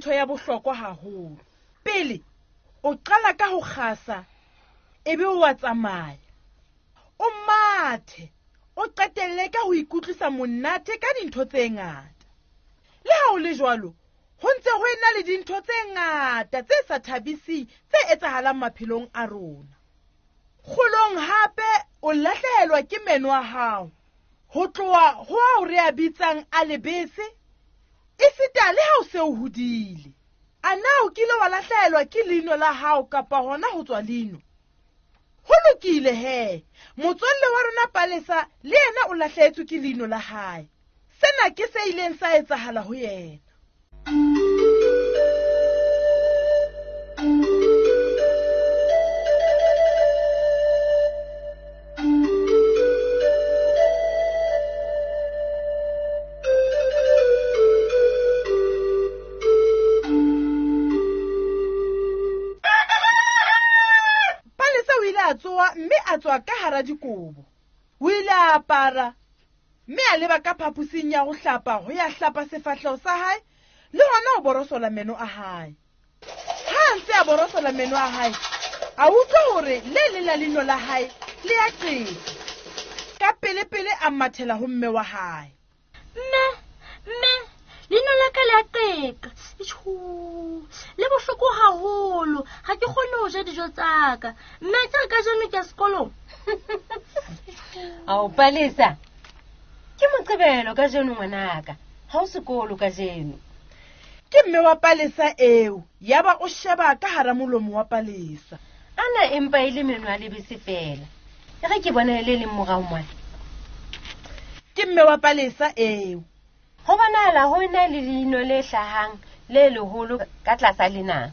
ntho ya bohlokwa haholo. Pele o qala ka ho kgasa, ebe o a tsamaya. O mathe, o qetelle ka ho ikutlwisa monate ka dintho tse ngata. Le ha o le jwalo, ho ntse ho ena le dintho tse ngata tse sa thabiseng tse etsahalang maphelong a rona. Kgolong hape o lahlehelwa ke meno a hao, ho tloha ho ao re a bitsang a lebese, esita le ha o se o hodile. A na o kile wa lahlehelwa ke leino la hao kapa hona ho tswa leino? Ho lokile he, motswalle wa rona Palesa le yena o lahlehetswe ke leino la hae. Sena ke se ileng sa etsahala ho yena. Palesa o ile a tsoha mme a tswa ka hara dikobo. O ile a apara mme a leba ka phaposing ya ho hlapa ho ya hlapa sefahleho sa hae le hona ho borosola meno a hae. Ha a ntse a borosola meno a hae, a utlwa hore le leng la leino la hae le a qeta. Ka pele-pele a mathela ho mme wa hae. Mme, mme, leino la ka le a qeka. Itjhu, le bohloko haholo, ha ke kgone ho ja dijo tsa ka. Mme, ke re kajeno ke ya sekolong. Ao, Palesa, ke Moqebelo kajeno ngwanaka, ha o sekolo kajeno. Ke mme wa Palesa eo, yaba o sheba ka hara molomo wa Palesa. Ana empa e le meno a lebese feela. E re ke bona e le leng morao mona. Ke mme wa Palesa eo. Ho bonahala ho ena le leino le hlahang le leholo ka tlasa lenang.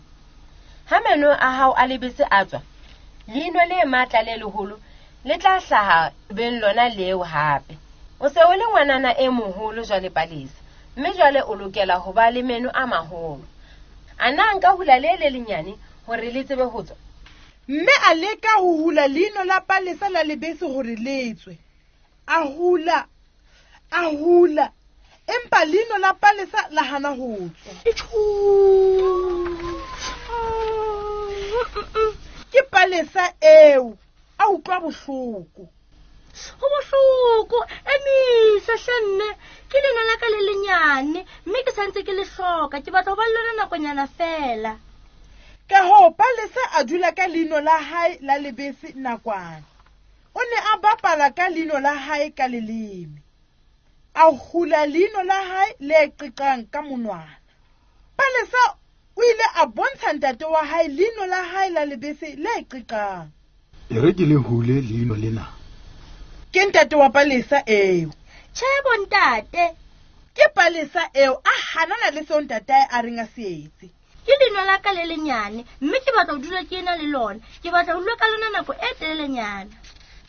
Ha meno a hao a lebese a tswa, leino le matla le leholo le tla hlaha beng lona leo hape. O se o le ngwanana e moholo jwale Palesa, mme jwale o lokela ho ba le meno a maholo. A na nka hula le le lenyane hore le tsebe ho tswa? Mme a leka ho hula leino la Palesa la lebese hore le tswe. A hula, a hula, empa leino la Palesa la hana ho tswa. Ke Palesa eo, a utlwa bohloko. Ho bohloko, emisa hle mme, ke leino la ka le lenyane, mme ke santse ke le hloka, ke batla ho ba le lona nakonyana fela. Ka hoo Palesa a dula ka leino la hae la lebese nakwana. O ne a bapala ka leino la hae ka leleme. A hula leino la hae le qeqang ka monwana. Palesa o ile a bontsha ntate wa hae leino la hae la lebese le qeqang. E re ke le hule leino lena. Ke ntate wa Palesa eo. Tjhe bo ntate. Ke Palesa eo a hanana le seo ntatae a reng a se etse. Ke leino la ka le lenyane, mme ke batla ho dula ke ena le lona. Ke batla ho dula ka lona nako e telelenyana.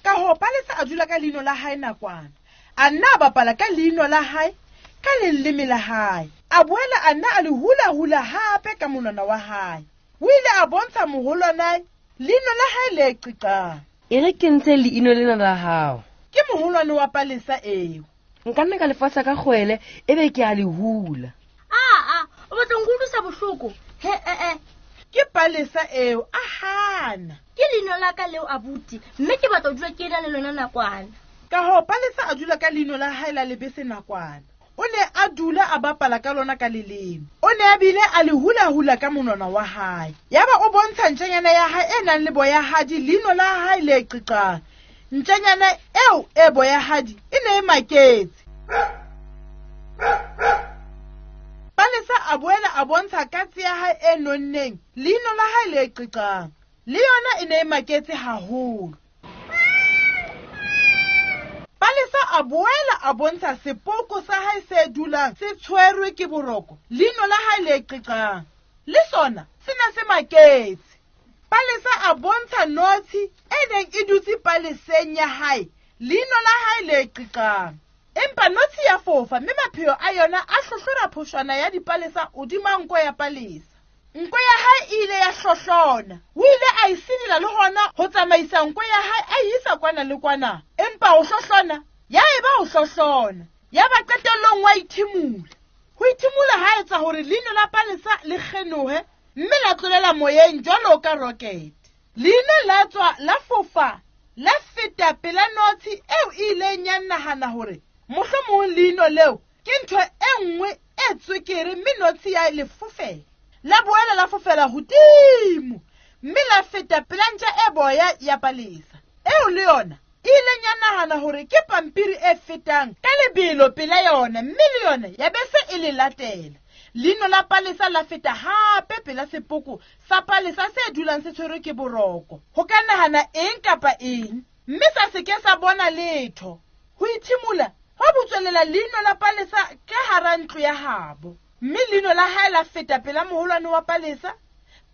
Ka hoo Palesa a dula ka leino la hae nakwana. A nna a bapala ka leino la hae, ka leleme la hae. A boela a nna a le hula-hula hape ka monwana wa hae. O ile a bontsha moholwanae leino la hae le qiqang. E re ke ntshe leino lena la hao. Ke moholwane wa Palesa eo. Nka nna ka le fasa ka kgwele, ebe ke a le hula. Aa, o batla ho nkutlwisa bohloko? He, e, e. Ke Palesa eo, a hana. Ke leino la ka leo, abuti, mme ke batla ho dula ke ena le lona nakwana. Ka hoo Palesa a dula ka leino la hae la lebese nakwana. O ne a dula a bapala ka lona ka leleme. O ne a bile a le hula-hula ka monwana wa hae. Yaba o bontsha ntjanyana ya hae e nang le boyahadi leino la hae le qiqang. Ntjanyana eo e boyahadi e ne e maketse. Palesa a boela a bontsha katse ya hae e nonneng leino la hae le qiqang. Le yona e ne e maketse haholo. Palesa a boela a bontsha sepoko sa hae se dulang se tshwerwe ke boroko leino la hae le qiqang. Le sona se ne se maketse. Palesa a bontsha notshi e neng e dutse paleseng ya hae leino la hae le qiqang. Empa notshi ya fofa mme mapheo a yona a hlohlora phoshwana ya dipalesa hodima nko ya Palesa. Nko ya hae e ile ya hlohlona. O ile a e sidila le hona ho tsamaisa nko ya hae a e isa kwana le kwana. Empa ho hlohlona, ya eba ho hlohlona. Ya ba qetellong wa ithimula. Ho ithimula ha etsa hore hore leino la Palesa le kgenohe mme la tlolela moyeng jwalo ka rocket. Leino la tswa la fofa la feta pela notshi eo e ileng ya nahana hore mohlomong leino leo ke ntho e nngwe e tswekere mme notshi ya le fofela. La boela la fofela hodimo mme la feta pela ntja e boya ya Palesa eo le yona e ileng ya nahana hore ke pampiri e fetang ka lebelo pela yona mme le yona ya bese e le latela. Leino la Palesa la feta hape pela sepoko sa Palesa se dulang se tshwerwe ke boroko. Ho ka nahana eng kapa eng mme sa se ke sa bona letho. Ho ithimola hwa butswelela leino la Palesa ka hara ntlo ya habo. Mme leino la hae la feta pela moholwane wa Palesa,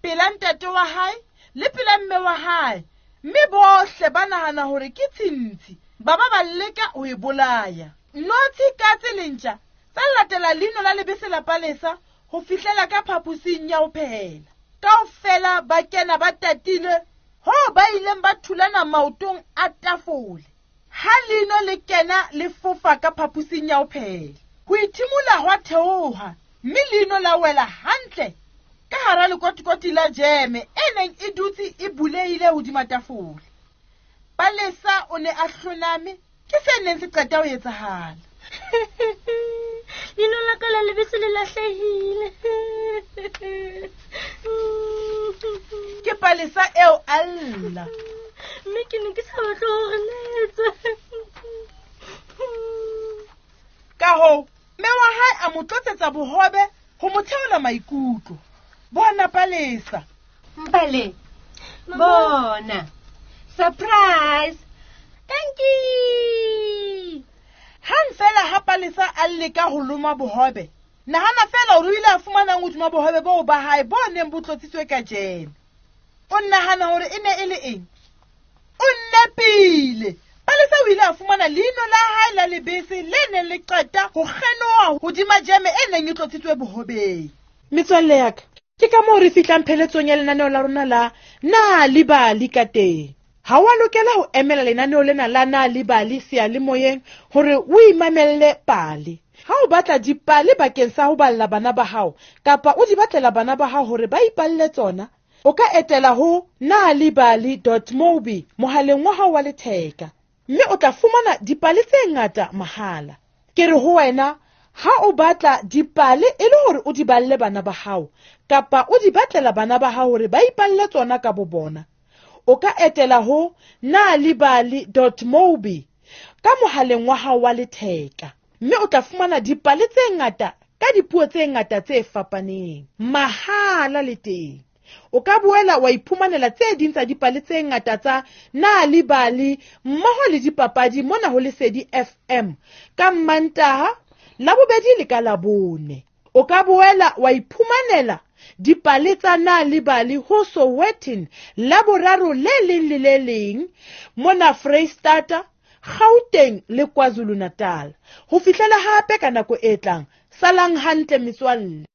pela ntate wa hae le pela mme wa hae. Mme bohle ba nahana hore ke tshintshi, ba ba ba leka ho e bolaya. Notshi, katse le ntja tsa latela leino la lebese la Palesa ho fihlela ka phaposing ya ho phehela. Kaofela ba kena ba tatile hoo ba ileng ba thulana maotong a tafole. Ha leino le kena le fofa ka phaposing ya ho phehela, ho ithimola hwa theoha mme leino la wela hantle ka hara lekotikoti la jeme e neng e dutse e bulehile hodima tafole. Palesa o ne a hloname ke se neng se qeta ho etsahala. Leino la ka la lebese le lahlehile. Ke Palesa eo a lla. Mme ke ne ke sa batle hore letswe. Ka hoo, mme wa hae a mo tlotsetsa bohobe ho mo theola maikutlo. Bona Palesa. Mpale, bona. Surprise! Thank you. Hang fela ha Palesa a leka ho loma bohobe, nahana fela hore o ile a fumanang hodima bohobe boo ba hae bo neng bo tlotsitswe ka jeme. O nahana hore e ne e le eng? O nepile. Palesa o ile a fumana leino la hae la lebese le neng le qeta ho kgenoha hodima jeme e neng e tlotsitswe bohobeng. Metswalle ya ka, ke ka moo re fihlang pheletsong ya lenaneo la rona la Na le Bali ka teng. Ha wa lokela ho emela lenaneo lena la Na le Bali seyalemoyeng hore o imamelle pale. Ha o batla dipale bakeng sa ho balla bana ba hao kapa o di batlela bana ba hao hore ba ipalle tsona, o ka etela ho nalibali.mobi mohaleng wa hao wa letheka mme o tla fumana dipale tse ngata mahala. Ke re ho wena, ha o batla dipale e le hore o di balle bana ba hao kapa o di batlela bana ba hao hore ba ipalle tsona ka bo bona, o ka etela ho nalibali.mobi ka mohaleng wa hao wa letheka mme o tla fumana dipale tse ngata ka dipuo tse ngata tse fapaneng mahala le teng. O ka boela wa iphumanela tse ding tsa dipale tse ngata tsa Nalibali mmoho le dipapadi mona ho Lesedi FM ka Mmantaha, Labobedi le ka Labone. O ka boela wa iphumanela dipale tsa Nalibali ho Sowetan Laboraro le leng le le leng mona Freistata, Gauteng le KwaZulu-Natal. Ho fihlela hape ka nako e tlang, salang hantle metswalle.